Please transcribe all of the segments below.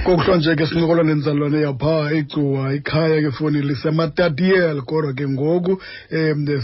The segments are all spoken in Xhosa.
Kokuhlwa nje ke sincokola nenzalwane yapha eGcuwa, ikhaya ke foni liseMatatiel, kodwa ke ngoku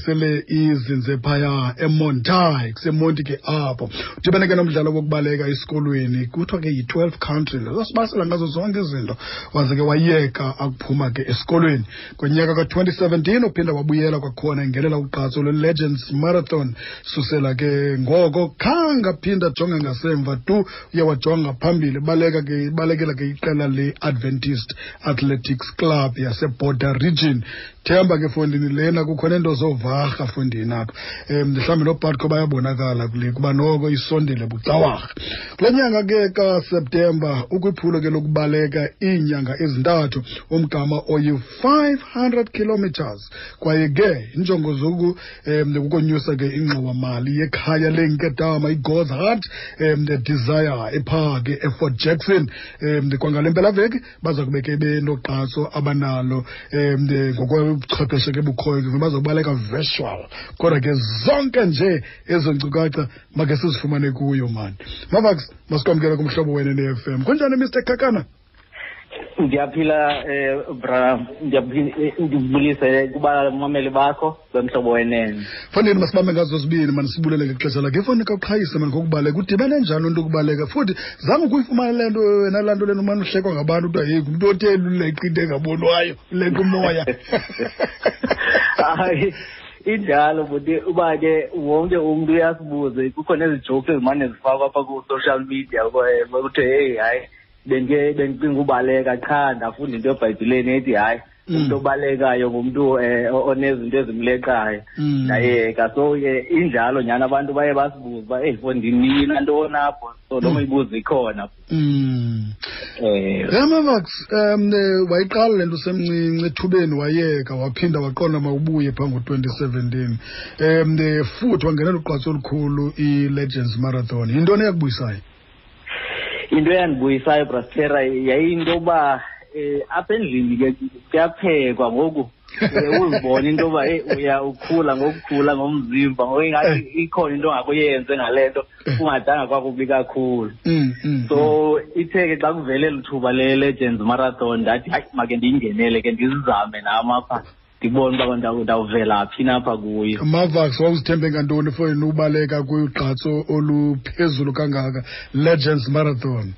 sele izinze phaya eMontai, kuseMonti ke apho. Udibene ke nomdlalo wokubaleka esikolweni, kuthiwa ke yi-12 country, sasibasela ngazo zonke izinto, waze ke wayeka akuphuma ke esikolweni. Ngonyaka ka-2017 uphinda wabuyela kwakhona engenela ugqatso lwe-Legends Marathon. Susela ke ngoko khange aphinda ajonge ngasemva tu, uye wajonga phambili, baleka ke balekela ke iqela le-Adventist Athletics Club yaseBorder Region. Themba ke fondini lena kukho nento zovarha fondini apha, mhlawumbi noBatco bayabonakala kule kuba noko isondele bucawarha. Kule nyanga ke kaSeptemba ukwiphulo ke lokubaleka iinyanga ezintathu, umgama oyi-500 kilometers, kwaye ke injongo zoku kukonyusa ke ingxowamali yekhaya leenkedama iGod's Heart Desire ephaa ke eFort Jackson. Kwangale mpelaveki baza kube ke benoqatso abanalo ngokobuchwepheshe ke bukhoyo, ke bazobaleka virtual, kodwa ke zonke nje ezo nkcukacha make sizifumane kuyo mani. Mavax, masikwamkele kumhlobo wena ne-FM. Kunjani Mr Kakana? Ndiyaphila, bra, ndibulise kubamameli bakho bemhlobo wenene. Fanele masibambe ngazo zibini mani, sibulele ngexesha lakhe. Ifoni kaqhayise mani ngokubaleka, udibene njani loo nto ukubaleka? Futhi zange ukuyifumane le nto wena, laa nto lena umane uhlekwa ngabantu kuthiwa heyi ngumntu otheni uleqa into engabonwayo, uleqa umoya. Hayi, injalo buti, uba ke wonke umntu uyasibuze, kukho nezi jokes ezimane zifakwa apha ku-social media kuthiwe heyi hayi bendicinga ubaleka qha ndafunda into eBhayibhileni ethi hayi umuntu obalekayo ngumntu onezinto ezimleqayo, ndayeka. So ke injalo nyhani, abantu baye basibuze uba eyi fondini ntoni apho, so loo mibuzo ikhona. Mavax, wayiqala le nto usemncinci, ethubeni wayeka, waphinda waqonda mawubuye phaa ngo-2017, futhi wangenela ugqatso olukhulu i-Legends Marathon. Yintoni eyakubuyisayo? Into eyandibuyisayo, Brastera, yayiyinto yoba apha endlini ke kuyaphekwa ngoku, uzibone into yoba heyi uya ukhula ngokukhula ngomzimba, ngoku ingathi ikhona into ongakuyenze ngale nto kungadanga kwakubi kakhulu. So ithe ke xa kuvele eli thuba le-Legends Marathon ndathi hayi make ndiyingenele ke, ndizizame nam apha, ndibone uba ndawuvela phi napha kuyo. Mavax, wawuzithembe ngantoni for yena ubaleka kugqatso oluphezulu kangaka, Legends Marathon?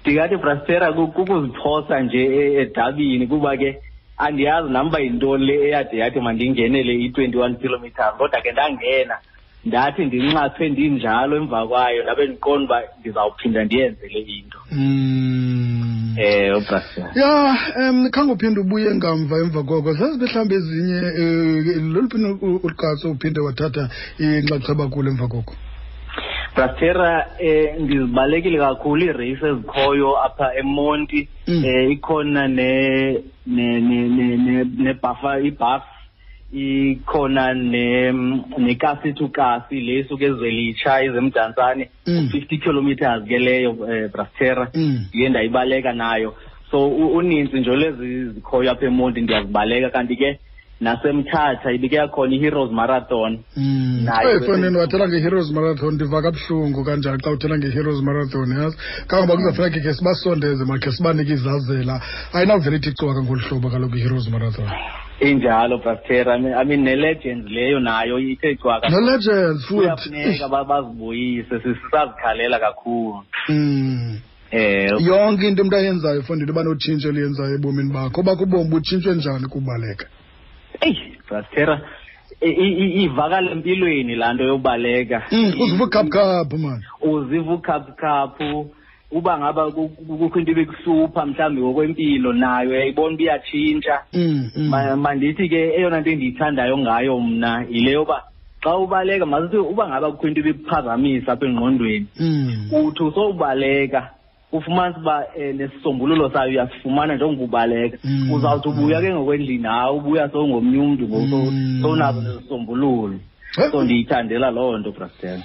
Ndingathi Brastera kukuziphosa nje edabini, kuba ke andiyazi nam uba yintoni le eyade yathi mandingenele i-21 kilometers, kodwa ke ndangena, ndathi ndinxathwe ndinjalo emva kwayo, ndabe ndiqonda uba ndizawuphinda ndiyenze le into. Ubrastera. Ya, khange uphinde ubuye ngamva emva koko, zazibe mhlawumbi ezinye, loluphi ugqatso uphinde wathatha inxaxheba kulo emva koko? Brastera, ndizibalekile kakhulu iireyisi ezikhoyo apha eMonti. Ikhona ne ne ne ne nebhafa, ibhaf, ikhona nekasi to kasi le isuka eZwelitsha izeMdantsane, 50 kilometers ke leyo, Brastera, ndiye ndayibaleka nayo. So uninzi nje lezi zikhoyo apha eMonti ndiyazibaleka, kanti ke naseMthatha ibike yakhona i-Heroes Marathon. Nayo Fonini, wathela nge-Heroes Marathon, ndiva kabuhlungu kanjani xa uthela nge-Heroes Marathon, yazi kangoba kuzafuneka khe sibasondeze, makhe sibanike izazela, ayinawuvele ithi cwaka ngolu hlobo kaloku i-Heroes Marathon. Injalo Brastera, I mean ne-Legends leyo nayo ithe cwaka. Ne-Legends futhi. Kuyafuneka bazibuyise, sisazikhalela kakhulu. Yonke into umuntu ayenzayo fondini uba notshintsho eliyenzayo ebomini bakho, obakho ubomi butshintshwe njani kubaleka? Eyi Brastera, ivakala empilweni laa nto yokubaleka. Uziva ukhaphukhaphu mani. Uziva ukhaphukhaphu, uba ngaba kukho into ebikuhlupha mhlawumbi ngokwempilo nayo uyayibona uba iyatshintsha. Mandithi ke eyona nto endiyithandayo ngayo mna yile yoba xa ubaleka, masithi uba ngaba kukho into ebikuphazamisa apha engqondweni, uthi usowubaleka ufumanisa uba nesisombululo sayo uyasifumana njengoba ubaleka. Uzawuthi ubuya ke ngokwendlini, hayi ubuya sowungomnye umntu ngoku, sowunazo nezisombululo. So ndiyithandela loo nto, Brastera.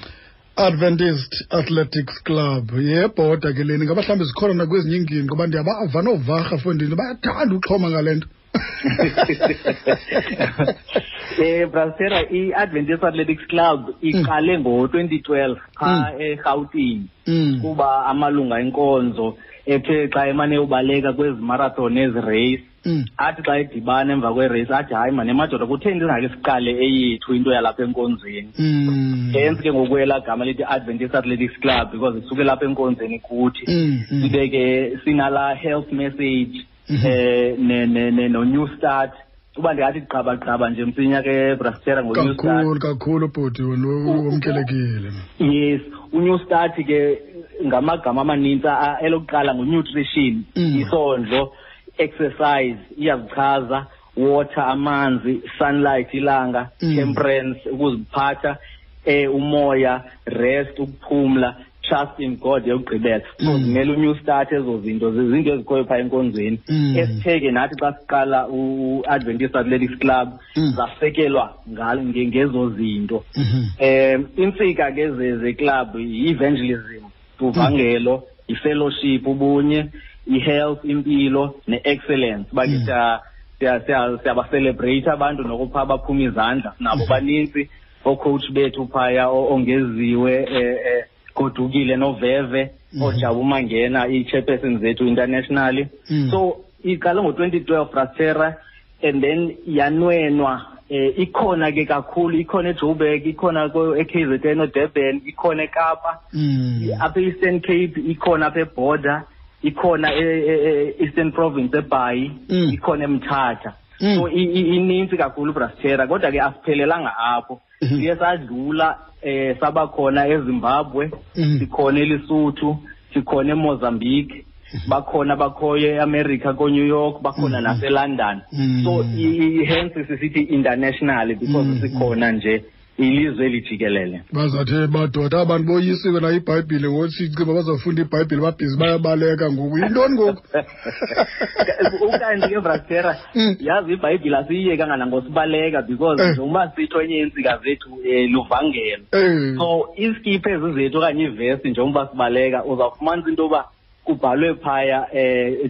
Adventist Athletics Club yebhoda ke leni, ngaba mhlawumbi zikhona nakwezinye iingingqi, ngoba ndiyabava noovarha fondini bayathanda uxhoma ngale nto. Brasera, i-Adventist Athletics Club iqale ngo-2012 phaa eRhawutini, kuba amalunga enkonzo ethe xa emane ubaleka kwezi marathon nezi race, athi xa edibana emva kwerace athi, hayi mani emadoda, kutheni singake siqale eyethu into yalapha enkonzweni? Hence ke ngoku elaa gama lithi Adventist Athletics Club, because isuke lapha enkonzweni kuthi. Sibe ke sinalaa health message ne ne ne no New Start. Uba ndingathi gqaba nje msinya ke, Brastera, ngo-New Start. Kakhulu kakhulu, bhuti, wena wamkelekile. Yes, u-New Start ke ngamagama amanintsi. Elokuqala ngu-nutrition, isondlo, exercise iyazichaza, water, amanzi, sunlight, ilanga, temperance, ukuziphatha, umoya, rest, ukuphumla, trust in God yokugqibela. So zimele u-New Start ezo zinto, zizinto ezikhoyo phaa enkonzweni, esithe ke nathi xa siqala u-Adventist Athletics Club zasekelwa ngezo zinto. Intsika ke ze-club yi-evangelism, uvangelo, i-fellowship, ubunye, i-health, impilo, ne-excellence. Uba ke siyaba-celebrate abantu nokupha baphuma izandla nabo, banintsi oocoach bethu phaya, ongeziwe Godukile noveve, ojabu mangena, ii-chairperson zethu internationally. So iqale ngo-2012, Brastera, and then yanwenwa. Ikhona ke kakhulu, ikhona eJoburg, ikhona e-KZN, oDurban, ikhona eKapa, apha e-Eastern Cape ikhona, apha eBorder ikhona, e-Eastern Province eBhayi ikhona, eMthatha. So ininzi kakhulu, Brastera, kodwa ke asiphelelanga apho. Siye sadlula, sabakhona eZimbabwe, sikhona eLesotho, sikhona eMozambique, bakhona bakhoyo eAmerica, ko-New York bakhona, naseLondon. So hence sisithi internationally, because sikhona nje ilizwe elijikelele. Bazathi madoda abantu boyisiwe na ibhayibhile ngothi ciba bazawufunda ibhayibhile, babhizi bayabaleka ngoku, yintoni ngoku? Ukanti ke, Brastera, yazi ibhayibhile asiyiyekanga nangosibaleka, because njengoba sitsho, enye yeentsika zethu luvangelo. So iskipha ezi zethu okanye ivesti, njengoba sibaleka, uzawufumanisa into yoba kubhalwe phaya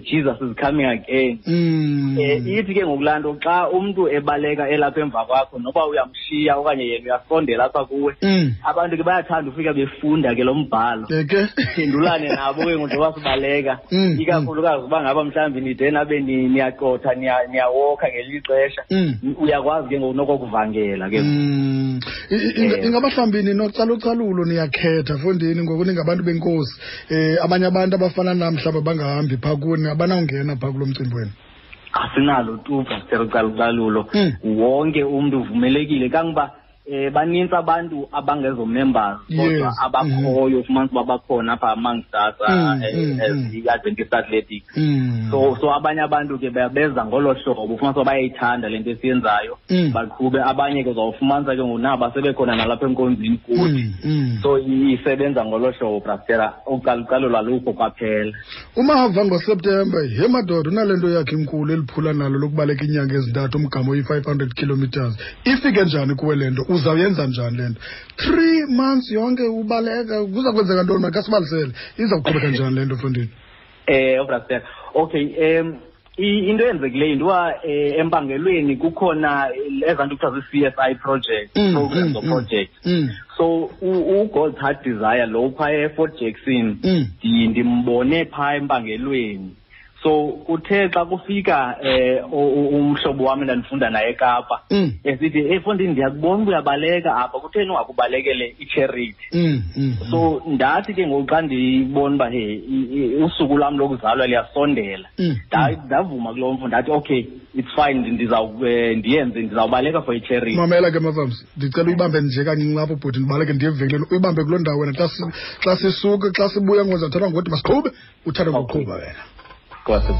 "Jesus is coming again". Ithi ke ngokulaa nto, xa umntu ebaleka elapha emva kwakho, noba uyamshiya okanye yena uyasondela apha kuwe, abantu ke bayathanda ufika befunda ke lo mbhalo. Ke phendulane nabo ke ngoku njengoba sibaleka, ikakhulukazi uba ngaba mhlawumbi nide nabe niyaqotha, niyawokha ngelinye ixesha, uyakwazi ke ngoku nokokuvangela ke. Ingaba mhlawumbi ninocalucalulo, niyakhetha fondini ngoku ningabantu benkosi, abanye abantu abafana nam mhlawumbi bangahambi phaa kuni, abanawungena phaa kulo mcimbi wenu? Asinalo tu, Pastor, ucalucalulo. Wonke umntu uvumelekile, kangoba banintsi abantu abangezo members kodwa abakhoyo, ufumanisa uba bakhona apha amongst us as i-Adventist Athletics. So abanye abantu ke beza ngolo hlobo, ufumanisa uba bayayithanda le nto esiyenzayo, baqhube. Abanye ke uzawufumanisa ke ngoku naba sebekhona nalapha enkonzweni kuthi. So isebenza ngolo hlobo, Brastera, ucalucalulo alukho kwaphela. Umava ngoSeptemba, ye madoda, unale nto yakhe inkulu eliphula nalo lokubaleka iinyanga ezintathu umgama oyi-500 kilometers. Ifike njani kuwe le nto? Uzawuyenza njani le nto, 3 months yonke ubaleka? Kuza kwenzeka ntoni? Makasibalisele, iza kuqhubeka njani le nto, mfondini? Brastera, okay, into eyenzekileyo yinto uba empangelweni kukhona ezaa nto kuthiwa zii-CSI project, programs or project. So uGod's Heart Desire lo phaa eFort Jackson, ndimbone phaa empangelweni. So kuthe xa kufika umhlobo wam endandifunda naye eKapa, esithi, "Hey mfondini, ndiyakubona uba uyabaleka apha, kutheni ungakubalekele i-charity?" So ndathi ke ngoku xa ndibona uba he usuku lwam lokuzalwa liyasondela, ndavuma kulo mfo, ndathi, "Okay, it's fine, ndiyenze, ndizawubaleka for i-charity." Mamela ke, Mavams, ndicela uyibambe nje kancinci apho, bhuti, ndibaleke ndiye evenkileni. Uyibambe kuloo ndawo wena. Xa sisuka, xa sibuya ngoku, ndizawuthatha ngokuthi masiqhube, uthathe ngokuqhuba wena. Nkosi.